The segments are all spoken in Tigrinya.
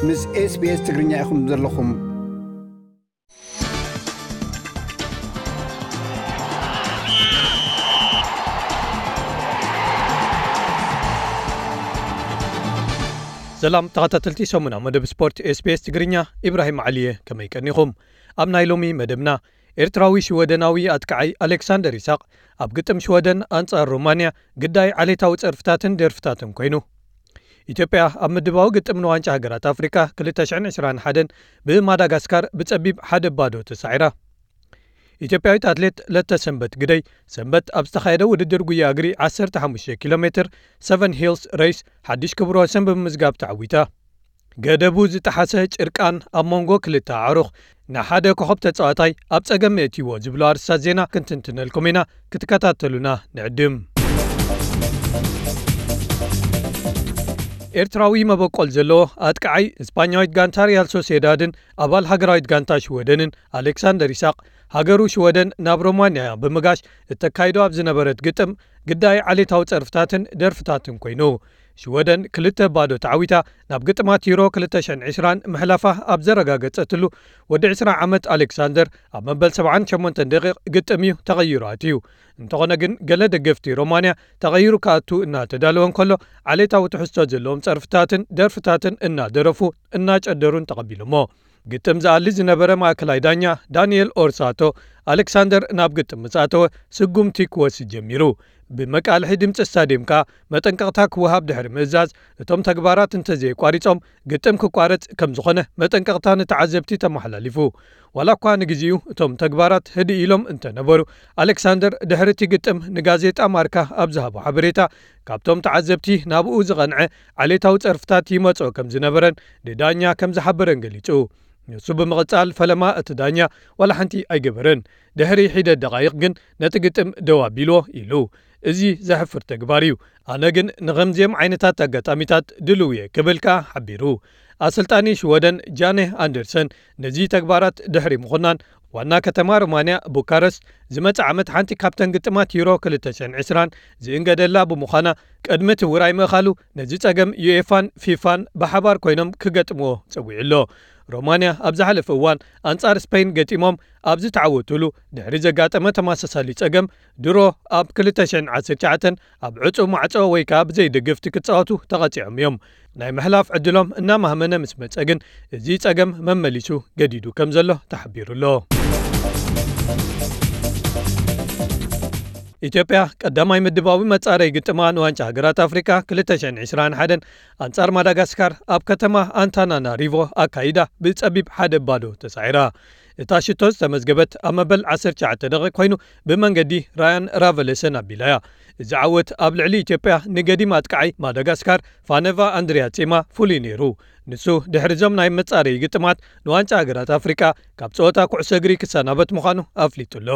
ምስ SBS ትግርኛ ኢኹም ዘለኹም። ሰላም ተኸታተልቲ ሰሙና መደብ ስፖርት SBS ትግርኛ፣ ኢብራሂም ዓሊየ፣ ከመይ ቀኒኹም? ኣብ ናይ ሎሚ መደብና፣ ኤርትራዊ ሽወደናዊ ኣጥቃዓይ ኣሌክሳንደር ይስሐቅ ኣብ ግጥም ሽወደን ኣንጻር ሮማንያ ግዳይ ዓሌታዊ ጸርፍታትን ደርፍታትን ኮይኑ። ኢትዮጵያ ኣብ ምድባዊ ግጥም ንዋንጫ ሃገራት ኣፍሪካ ክልተ ሽሕን ዕስራን ሓደን ብማዳጋስካር ብጸቢብ ሓደ ባዶ ተሳዒራ። ኢትዮጵያዊት ኣትሌት ለተ ሰንበት ግደይ ሰንበት ኣብ ዝተኻየደ ውድድር ጉያ እግሪ ዓሰርተ ሓሙሽተ ኪሎ ሜትር ሰቨን ሂልስ ሬስ ሓድሽ ክብረ ወሰን ብምምዝጋብ ተዓዊታ። ገደቡ ዝጠሓሰ ጭርቃን ኣብ መንጎ ክልተ ኣዕሩኽ ንሓደ ኮኸብ ተጻዋታይ ኣብ ጸገም የእትይዎ ዝብሉ ኣርስታት ዜና ክንትንትነልኩም ኢና፣ ክትከታተሉና ንዕድም። ኤርትራዊ መበቆል ዘለዎ ኣጥቃዓይ እስፓኛዊት ጋንታ ሪያል ሶሴዳድን ኣባል ሃገራዊት ጋንታ ሽወደንን ኣሌክሳንደር ይስሐቅ፣ ሃገሩ ሽወደን ናብ ሮማንያ ብምጋሽ እተካይዶ ኣብ ዝነበረት ግጥም ግዳይ ዓሌታዊ ጸርፍታትን ደርፍታትን ኮይኑ። ሽወደን ክልተ ባዶ ተዓዊታ ናብ ግጥማት ዩሮ ክልተ ሽሕን ዕስራን ምሕላፋ ኣብ ዘረጋገጸትሉ፣ ወዲ ዕስራ ዓመት ኣሌክሳንደር ኣብ መበል ሰብዓን ሸሞንተን ደቂቕ ግጥም እዩ ተቐይሩ ኣትዩ። እንተኾነ ግን፣ ገለ ደገፍቲ ሮማንያ ተቐይሩ ክኣቱ እናተዳለወ እንከሎ፣ ዓሌታዊ ትሕዝቶ ዘለዎም ጸርፍታትን ደርፍታትን እናደረፉ እናጨደሩን ተቐቢሎሞ። ግጥም ዝኣሊ ዝነበረ ማእከላይ ዳኛ ዳንኤል ኦርሳቶ፣ ኣሌክሳንደር ናብ ግጥም ምስ ኣተወ ስጉምቲ ክወስድ ጀሚሩ። ብመቃልሒ ድምጺ ስታድየም ከኣ መጠንቀቕታ ክወሃብ ድሕሪ ምእዛዝ፣ እቶም ተግባራት እንተዘየቋሪጾም ግጥም ክቋረጽ ከም ዝኾነ መጠንቀቕታ ንተዓዘብቲ ተመሓላሊፉ። ዋላ እኳ ንግዜኡ እቶም ተግባራት ህድእ ኢሎም እንተነበሩ፣ ኣሌክሳንደር ድሕሪ እቲ ግጥም ንጋዜጣ ማርካ ኣብ ዝሃቦ ሓበሬታ፣ ካብቶም ተዓዘብቲ ናብኡ ዝቐንዐ ዓሌታዊ ጸርፍታት ይመጾ ከም ዝነበረን ንዳኛ ከም ዝሓበረን ገሊጹ። ንሱ ብምቕጻል፣ ፈለማ እቲ ዳኛ ዋላ ሓንቲ ኣይገበረን። ድሕሪ ሒደት ደቓይቕ ግን ነቲ ግጥም ደው ኣቢልዎ ኢሉ። እዚ ዘሕፍር ተግባር እዩ። ኣነ ግን ንኸምዚኦም ዓይነታት ኣጋጣሚታት ድልው እየ ክብል ከኣ ሓቢሩ። ኣሰልጣኒ ሽወደን ጃኔ ኣንደርሰን ነዚ ተግባራት ድሕሪ ምኹናን፣ ዋና ከተማ ሮማንያ ቡካረስት ዝመጽእ ዓመት ሓንቲ ካብተን ግጥማት ዩሮ ክልተ ሽሕን ዕስራን ዝእንገደላ ብምዃና፣ ቅድሚ እቲ ውራይ ምእኻሉ ነዚ ጸገም ዩኤፋን ፊፋን ብሓባር ኮይኖም ክገጥምዎ ጸዊዑ ኣሎ። ሮማንያ ኣብ ዝሓለፈ እዋን ኣንጻር ስፔን ገጢሞም ኣብ ዝተዓወቱሉ ድሕሪ ዘጋጠመ ተመሳሳሊ ጸገም፣ ድሮ ኣብ ክልተ ሽሕን ዓሰርተ ትሽዓተን ኣብ ዕጹው ማዕጾ ወይ ከኣ ብዘይ ደገፍቲ ክጻወቱ ተቐጺዖም እዮም። ናይ ምሕላፍ ዕድሎም እናማህመነ ምስ መጸ ግን፣ እዚ ጸገም መመሊሱ ገዲዱ ከም ዘሎ ተሓቢሩ ኣሎ። ኢትዮጵያ ቀዳማይ ምድባዊ መጻረይ ግጥማ ንዋንጫ ሃገራት ኣፍሪቃ ክልተ ሽሕን ዕስራን ሓደን ኣንጻር ማዳጋስካር ኣብ ከተማ ኣንታናናሪቮ ኣካይዳ ብጸቢብ ሓደ ባዶ ተሳዒራ። እታ ሽቶ ዝተመዝገበት ኣብ መበል ዓሰርተ ትሽዓተ ደቂቕ ኮይኑ፣ ብመንገዲ ራያን ራቨለሰን ኣቢላ እያ። እዚ ዓወት ኣብ ልዕሊ ኢትዮጵያ ንገዲም ኣጥቃዓይ ማዳጋስካር ፋነቫ ኣንድሪያ ጼማ ፍሉይ ነይሩ። ንሱ ድሕሪ እዞም ናይ መጻረዪ ግጥማት ንዋንጫ ሃገራት ኣፍሪቃ ካብ ጸወታ ኩዕሶ እግሪ ክሰናበት ምዃኑ ኣፍሊጡ ኣሎ።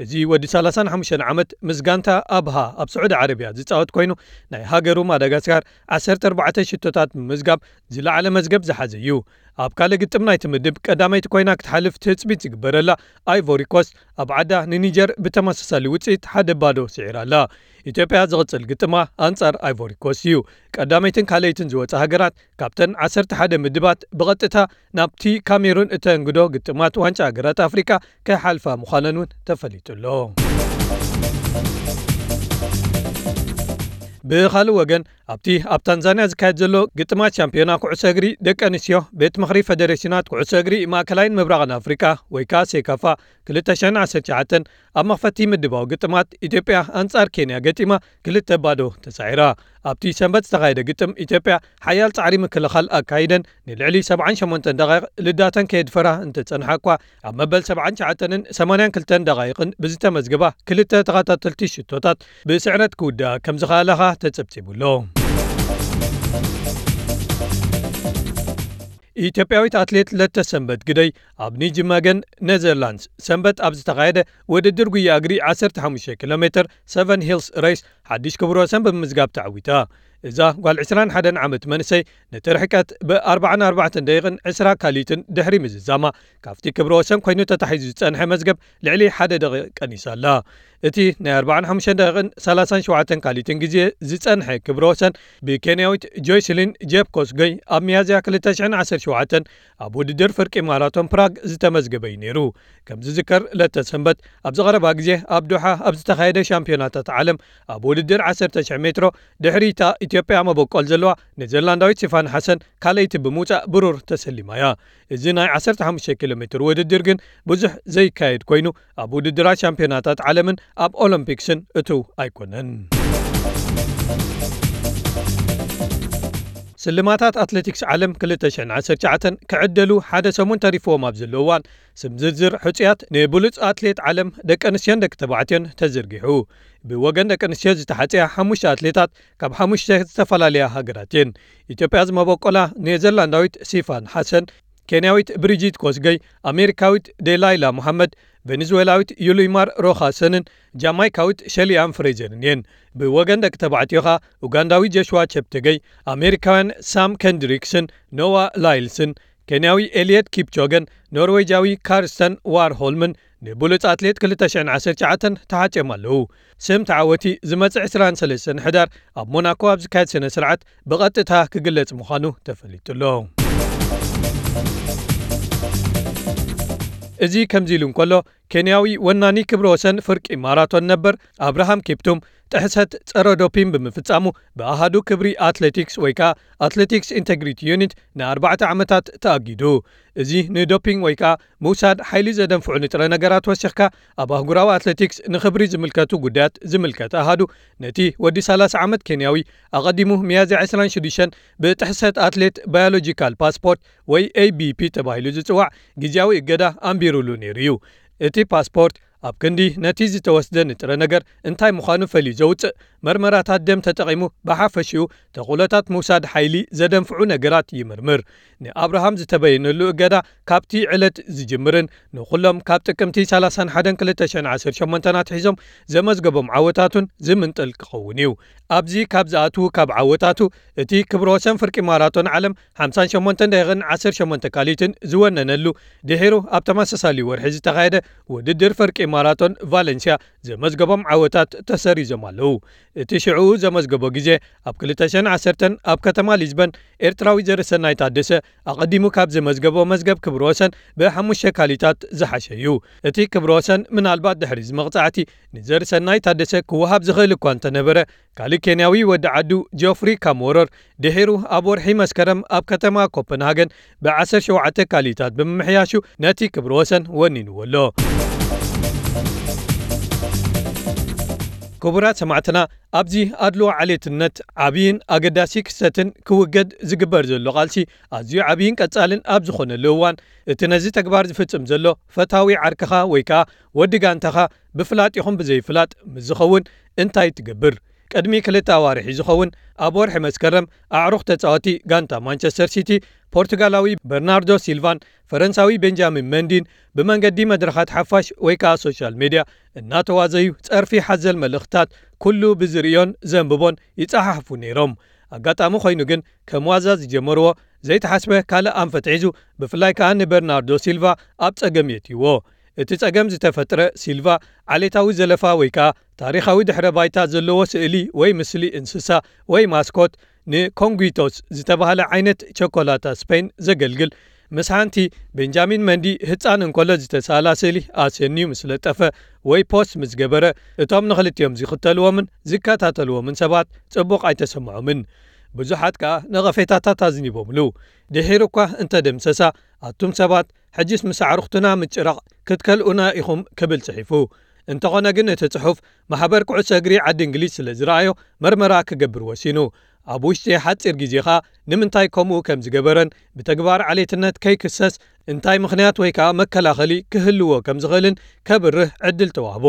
እዚ ወዲ ሰላሳን ሓሙሽተን ዓመት ምስ ጋንታ ኣብሃ ኣብ ስዑዲ ዓረብያ ዝጻወት ኮይኑ፣ ናይ ሃገሩ ማዳጋስካር ዓሰርተ ኣርባዕተ ሽቶታት ብምምዝጋብ ዝለዓለ መዝገብ ዝሓዘ እዩ። ኣብ ካልእ ግጥም ናይቲ ምድብ ቀዳመይቲ ኮይና ክትሓልፍ ትጽቢት ዝግበረላ ኣይቮሪ ኮስት ኣብ ዓዳ ንኒጀር ብተመሳሳሊ ውጽኢት ሓደ ባዶ ስዒራ ኣላ። ኢትዮጵያ ዝቕጽል ግጥማ ኣንጻር ኣይቮሪ ኮስት እዩ። ቀዳመይትን ካልኣይትን ዝወጻ ሃገራት ካብተን ዓሰርተ ሓደ ምድባት ብቐጥታ ናብቲ ካሜሩን እተንግዶ ግጥማት ዋንጫ ሃገራት ኣፍሪቃ ክሓልፋ ምዃነን እውን ተፈሊጡ ኣሎ። ብኻልእ ወገን፣ ኣብቲ ኣብ ታንዛንያ ዝካየድ ዘሎ ግጥማት ሻምፒዮና ኩዕሶ እግሪ ደቂ ኣንስትዮ፣ ቤት ምኽሪ ፌደሬሽናት ኩዕሶ እግሪ ማእከላይን ምብራቕን ኣፍሪቃ ወይ ከኣ ሴካፋ ክልተ ሽሕን ዓሰርተ ትሽዓተን ኣብ መኽፈቲ ምድባዊ ግጥማት ኢትዮጵያ ኣንጻር ኬንያ ገጢማ ክልተ ባዶ ተሳዒራ። ኣብቲ ሰንበት ዝተኻየደ ግጥም ኢትዮጵያ ሓያል ጻዕሪ ምክልኻል ኣካይደን ንልዕሊ ሰብዓን ሸሞንተን ደቓይቕ ልዳተን ከየድፈራ እንተጸንሓ እኳ፣ ኣብ መበል ሰብዓን ትሽዓተንን ሰማንያን ክልተን ደቓይቕን ብዝተመዝገባ ክልተ ተኸታተልቲ ሽቶታት ብስዕረት ክውድኣ ከም ዝኸኣላ ኸኣ ተጸብጺቡ ኣሎ። ኢትዮጵያዊት ኣትሌት ለተሰንበት ግደይ ኣብ ኒጅመገን ኔዘርላንድስ ሰንበት ኣብ ዝተኻየደ ውድድር ጉያ እግሪ ዓሰርተ ሓሙሽተ ኪሎ ሜትር ሰቨን ሂልስ ሬስ ሓድሽ ክብረ ወሰን ብምምዝጋብ ተዓዊታ። እዛ ጓል ዕስራን ሓደን ዓመት መንእሰይ ነቲ ርሕቀት ብኣርባዓን ኣርባዕተን ደቂቕን ዕስራ ካሊትን ድሕሪ ምዝዛማ፣ ካብቲ ክብረ ወሰን ኮይኑ ተታሒዙ ዝጸንሐ መዝገብ ልዕሊ ሓደ ደቂቕ ቀኒሳ ኣላ። እቲ ናይ ኣርባዓን ሓሙሽተን ደቂቕን ሰላሳን ሸውዓተን ካሊትን ግዜ ዝጸንሐ ክብረ ወሰን ብኬንያዊት ጆይስሊን ጄፕ ኮስገይ ኣብ ሚያዝያ ክልተ ሽሕን ዓሰርተ ሸውዓተን ኣብ ውድድር ፍርቂ ማራቶን ፕራግ ዝተመዝገበ እዩ ነይሩ። ከም ዝዝከር፣ ለተ ሰንበት ኣብ ዝቐረባ ግዜ ኣብ ዶሓ ኣብ ዝተኻየደ ሻምፒዮናታት ዓለም ኣብ ውድድር ዓሰርተ ሽሕ ሜትሮ ድሕሪታ ኢትዮጵያ መበቆል ዘለዋ ኔዘርላንዳዊት ሲፋን ሓሰን ካልኣይቲ ብምውጻእ ብሩር ተሰሊማ እያ። እዚ ናይ ዓሰርተ ሓሙሽተ ኪሎ ሜትር ውድድር ግን ብዙሕ ዘይካየድ ኮይኑ፣ ኣብ ውድድራት ሻምፒዮናታት ዓለምን ኣብ ኦሎምፒክስን እትው ኣይኮነን። ስልማታት ኣትሌቲክስ ዓለም ክልተ ሽሕን ዓሰርተ ትሽዓተን ክዕደሉ ሓደ ሰሙን ተሪፍዎም ኣብ ዘለዉ እዋን፣ ስም ዝርዝር ሕጹያት ንብሉጽ ኣትሌት ዓለም ደቂ ኣንስትዮን ደቂ ተባዕትዮን ተዘርጊሑ። ብወገን ደቂ ኣንስትዮ ዝተሓጽያ ሓሙሽተ ኣትሌታት ካብ ሓሙሽተ ዝተፈላለያ ሃገራት እየን። ኢትዮጵያ ዝመበቆላ ኔዘርላንዳዊት ሲፋን ሓሰን፣ ኬንያዊት ብሪጂት ኮስገይ፣ ኣሜሪካዊት ዴላይላ መሓመድ፣ ቬኔዙዌላዊት ዩሊማር ሮኻሰንን ጃማይካዊት ሸሊያን ፍሬዘርን እየን። ብወገን ደቂ ተባዕትዮ ኸኣ ኡጋንዳዊ ጆሽዋ ቸፕቴገይ፣ ኣሜሪካውያን ሳም ከንድሪክስን ኖዋ ላይልስን፣ ኬንያዊ ኤልየት ኪፕቾገን ኖርዌጃዊ ካርስተን ዋርሆልምን ንብሉጽ ኣትሌት ክልተ ሽሕን ዓሰርተ ትሽዓተን ተሓጽዮም ኣለዉ። ስም ተዓወቲ ዝመጽእ ዕስራን ሰለስተን ሕዳር ኣብ ሞናኮ ኣብ ዝካየድ ስነ ስርዓት ብቐጥታ ክግለጽ ምዃኑ ተፈሊጡ ኣሎ። እዚ ከምዚ ኢሉ እንከሎ፣ ኬንያዊ ወናኒ ክብረ ወሰን ፍርቂ ማራቶን ነበር ኣብርሃም ኪፕቱም ጥሕሰት ጸረ ዶፒን ብምፍጻሙ ብኣሃዱ ክብሪ ኣትሌቲክስ ወይ ከኣ ኣትሌቲክስ ኢንተግሪቲ ዩኒት ንኣርባዕተ ዓመታት ተኣጊዱ። እዚ ንዶፒንግ ወይ ከኣ ምውሳድ ሓይሊ ዘደንፍዑ ንጥረ ነገራት ወሲኽካ ኣብ ኣህጉራዊ ኣትሌቲክስ ንኽብሪ ዝምልከቱ ጉዳያት ዝምልከት ኣሃዱ ነቲ ወዲ ሰላሳ ዓመት ኬንያዊ ኣቐዲሙ ሚያዝያ ዕስራን ሽዱሽተን ብጥሕሰት ኣትሌት ባዮሎጂካል ፓስፖርት ወይ ኤ ቢ ፒ ተባሂሉ ዝጽዋዕ ግዝያዊ እገዳ ኣንቢሩሉ ነይሩ እዩ። እቲ ፓስፖርት ኣብ ክንዲ ነቲ ዝተወስደ ንጥረ ነገር እንታይ ምዃኑ ፈልዩ ዘውጽእ መርመራታት ደም ተጠቒሙ ብሓፈሽኡ ተኽእሎታት ምውሳድ ሓይሊ ዘደንፍዑ ነገራት ይምርምር። ንኣብርሃም ዝተበየነሉ እገዳ ካብቲ ዕለት ዝጅምርን ንኹሎም ካብ ጥቅምቲ ሰላሳን ሓደን ክልተ ሽሕን ዓሰርተ ሸሞንተን ኣትሒዞም ዘመዝገቦም ዓወታቱን ዝምንጥል ክኸውን እዩ። ኣብዚ ካብ ዝኣትዉ ካብ ዓወታቱ እቲ ክብረ ወሰን ፍርቂ ማራቶን ዓለም ሓምሳን ሸሞንተን ደቂቕን ዓሰርተ ሸሞንተ ካሊትን ዝወነነሉ ድሒሩ ኣብ ተመሳሳሊ ወርሒ ዝተኻየደ ውድድር ፍርቂ ማራቶን ቫለንሲያ ዘመዝገቦም ዓወታት ተሰሪዞም ኣለዉ። እቲ ሽዕኡ ዘመዝገቦ ግዜ ኣብ ክልተ ሽሕን ዓሰርተን ኣብ ከተማ ሊዝበን ኤርትራዊ ዘርሰናይ ታደሰ ኣቐዲሙ ካብ ዘመዝገቦ መዝገብ ክብረ ወሰን ብሓሙሽተ ካሊታት ዝሓሸ እዩ። እቲ ክብረ ወሰን ምናልባት ድሕሪ እዚ መቕጻዕቲ ንዘርሰናይ ታደሰ ክወሃብ ዝኽእል እኳ እንተነበረ፣ ካልእ ኬንያዊ ወዲ ዓዱ ጆፍሪ ካምወረር ድሒሩ ኣብ ወርሒ መስከረም ኣብ ከተማ ኮፐንሃገን ብዓሰርተ ሸውዓተ ካሊታት ብምምሕያሹ ነቲ ክብረ ወሰን ወኒንዎ ኣሎ። ክቡራት ሰማዕትና፣ ኣብዚ ኣድልዎ ዓሌትነት ዓብይን ኣገዳሲ ክስተትን ክውገድ ዝግበር ዘሎ ቃልሲ ኣዝዩ ዓብይን ቀጻልን ኣብ ዝኾነሉ እዋን፣ እቲ ነዚ ተግባር ዝፍጽም ዘሎ ፈታዊ ዓርክኻ ወይ ከኣ ወዲ ጋንታኻ ብፍላጥ ይኹን ብዘይፍላጥ ምስ ዝኸውን እንታይ ትገብር? ቅድሚ ክልተ ኣዋርሒ ዝኸውን ኣብ ወርሒ መስከረም ኣዕሩኽ ተጻወቲ ጋንታ ማንቸስተር ሲቲ ፖርቱጋላዊ በርናርዶ ሲልቫን ፈረንሳዊ ቤንጃሚን መንዲን ብመንገዲ መድረኻት ሓፋሽ ወይ ከኣ ሶሻል ሜድያ እናተዋዘዩ ጸርፊ ሓዘል መልእኽትታት ኩሉ ብዝርእዮን ዘንብቦን ይጸሓሕፉ ነይሮም። ኣጋጣሚ ኮይኑ ግን ከም ዋዛ ዝጀመርዎ ዘይተሓስበ ካልእ ኣንፈት ሒዙ፣ ብፍላይ ከኣ ንበርናርዶ ሲልቫ ኣብ ጸገም የእትይዎ። እቲ ጸገም ዝተፈጥረ ሲልቫ ዓሌታዊ ዘለፋ ወይ ከኣ ታሪኻዊ ድሕረ ባይታ ዘለዎ ስእሊ ወይ ምስሊ እንስሳ ወይ ማስኮት ንኮንጉቶስ ዝተባህለ ዓይነት ቸኮላታ ስፔን ዘገልግል ምስ ሓንቲ ቤንጃሚን መንዲ ህጻን እንከሎ ዝተሳእላ ስእሊ ኣስንዩ ምስ ለጠፈ ወይ ፖስት ምስ ገበረ፣ እቶም ንኽልቲኦም ዝኽተልዎምን ዝከታተልዎምን ሰባት ጽቡቕ ኣይተሰምዖምን። ብዙሓት ከኣ ነቐፌታታት ኣዝኒቦምሉ። ድሒሩ እኳ እንተደምሰሳ፣ ኣቱም ሰባት ሕጅስ ምስ ኣዕሩኽትና ምጭራቕ ክትከልኡና ኢኹም ክብል ጽሒፉ። እንተኾነ ግን እቲ ጽሑፍ ማሕበር ኩዕሶ እግሪ ዓዲ እንግሊዝ ስለ ዝረኣዮ መርመራ ክገብር ወሲኑ። ኣብ ውሽጢ ሓጺር ግዜ ኸኣ ንምንታይ ከምኡ ከም ዝገበረን ብተግባር ዓሌትነት ከይክሰስ እንታይ ምኽንያት ወይ ከኣ መከላኸሊ ክህልዎ ከም ዝኽእልን ከብርህ ዕድል ተዋህቦ።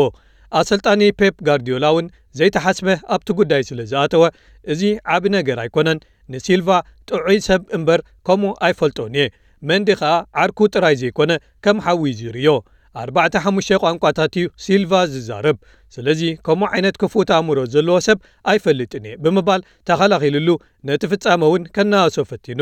ኣሰልጣኒ ፔፕ ጋርዲዮላ እውን ዘይተሓስበ ኣብቲ ጉዳይ ስለ ዝኣተወ፣ እዚ ዓቢ ነገር ኣይኮነን፣ ንሲልቫ ጥዑይ ሰብ እምበር ከምኡ ኣይፈልጦን እየ። መንዲ ኸኣ ዓርኩ ጥራይ ዘይኮነ ከም ሓዊ እዩ ዝርእዮ። ኣርባዕተ ሓሙሽተ ቋንቋታት እዩ ሲልቫ ዝዛረብ። ስለዚ ከምኡ ዓይነት ክፉት ኣእምሮ ዘለዎ ሰብ ኣይፈልጥን እየ ብምባል ተኸላኺሉሉ ነቲ ፍጻመ እውን ከነኣእሶ ፈቲኑ።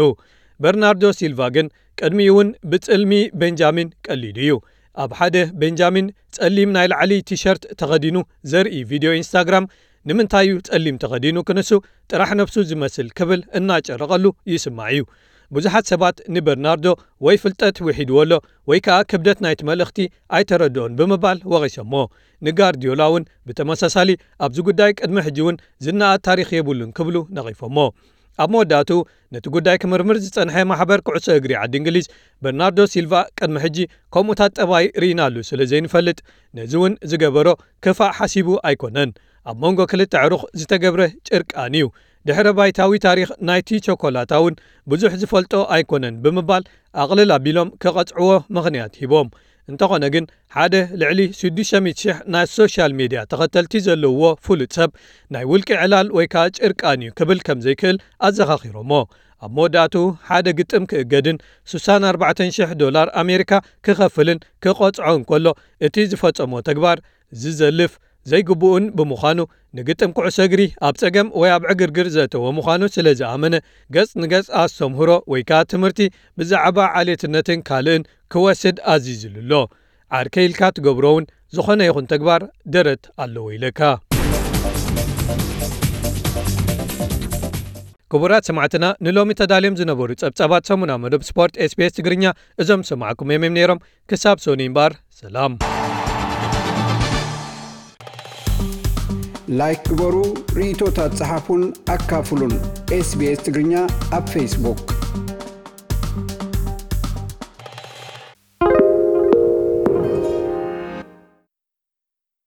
በርናርዶ ሲልቫ ግን ቅድሚኡ እውን ብጽልሚ ቤንጃሚን ቀሊዱ እዩ። ኣብ ሓደ ቤንጃሚን ጸሊም ናይ ላዕሊ ቲሸርት ተኸዲኑ ዘርኢ ቪድዮ ኢንስታግራም፣ "ንምንታይ እዩ ጸሊም ተኸዲኑ ክንሱ ጥራሕ ነብሱ ዝመስል?" ክብል እናጨረቐሉ ይስማዕ እዩ። ብዙሓት ሰባት ንበርናርዶ ወይ ፍልጠት ውሒድዎ ኣሎ ወይ ከኣ ክብደት ናይቲ መልእኽቲ ኣይተረድኦን ብምባል ወቒሶሞ። ንጋርዲዮላ እውን ብተመሳሳሊ ኣብዚ ጉዳይ ቅድሚ ሕጂ እውን ዝነኣድ ታሪኽ የብሉን ክብሉ ነቒፎሞ። ኣብ መወዳእትኡ ነቲ ጉዳይ ክምርምር ዝጸንሐ ማሕበር ኩዕሶ እግሪ ዓዲ እንግሊዝ፣ በርናርዶ ሲልቫ ቅድሚ ሕጂ ከምኡታት ጠባይ ርኢናሉ ስለ ዘይንፈልጥ፣ ነዚ እውን ዝገበሮ ክፋእ ሓሲቡ ኣይኮነን። ኣብ መንጎ ክልተ ኣዕሩኽ ዝተገብረ ጭርቃን እዩ። ድሕረ ባይታዊ ታሪኽ ናይቲ ቸኮላታ እውን ብዙሕ ዝፈልጦ ኣይኮነን ብምባል ኣቕልል ኣቢሎም ክቐጽዕዎ ምኽንያት ሂቦም። እንተኾነ ግን ሓደ ልዕሊ ሽዱሽተ ሚእቲ ሽሕ ናይ ሶሻል ሜድያ ተኸተልቲ ዘለውዎ ፍሉጥ ሰብ ናይ ውልቂ ዕላል ወይ ከኣ ጭርቃን እዩ ክብል ከም ዘይክእል ኣዘኻኺሮሞ። ኣብ መወዳእትኡ ሓደ ግጥም ክእገድን ሽሳን ኣርባዕተን ሽሕ ዶላር ኣሜሪካ ክኸፍልን ክቐጽዖ እንከሎ፣ እቲ ዝፈጸሞ ተግባር ዝዘልፍ ዘይግቡእን ብምዃኑ፣ ንግጥም ኩዕሶ እግሪ ኣብ ጸገም ወይ ኣብ ዕግርግር ዘእተወ ምዃኑ ስለ ዝኣመነ፣ ገጽ ንገጽ ኣስተምህሮ ወይ ከኣ ትምህርቲ ብዛዕባ ዓሌትነትን ካልእን ክወስድ ኣዚዙሉ ኣሎ። ዓርከይ ኢልካ ትገብሮ እውን ዝኾነ ይኹን ተግባር ደረት ኣለዎ ኢለካ። ክቡራት ሰማዕትና፣ ንሎሚ ተዳልዮም ዝነበሩ ጸብጻባት ሰሙና መደብ ስፖርት ኤስቢኤስ ትግርኛ እዞም ዝሰማዕኩም እዮም ነይሮም። ክሳብ ሶኒ እምበኣር፣ ሰላም። ላይክ ግበሩ፣ ርእይቶታት ጸሓፉን ኣካፍሉን። ኤስቢኤስ ትግርኛ ኣብ ፌስቡክ።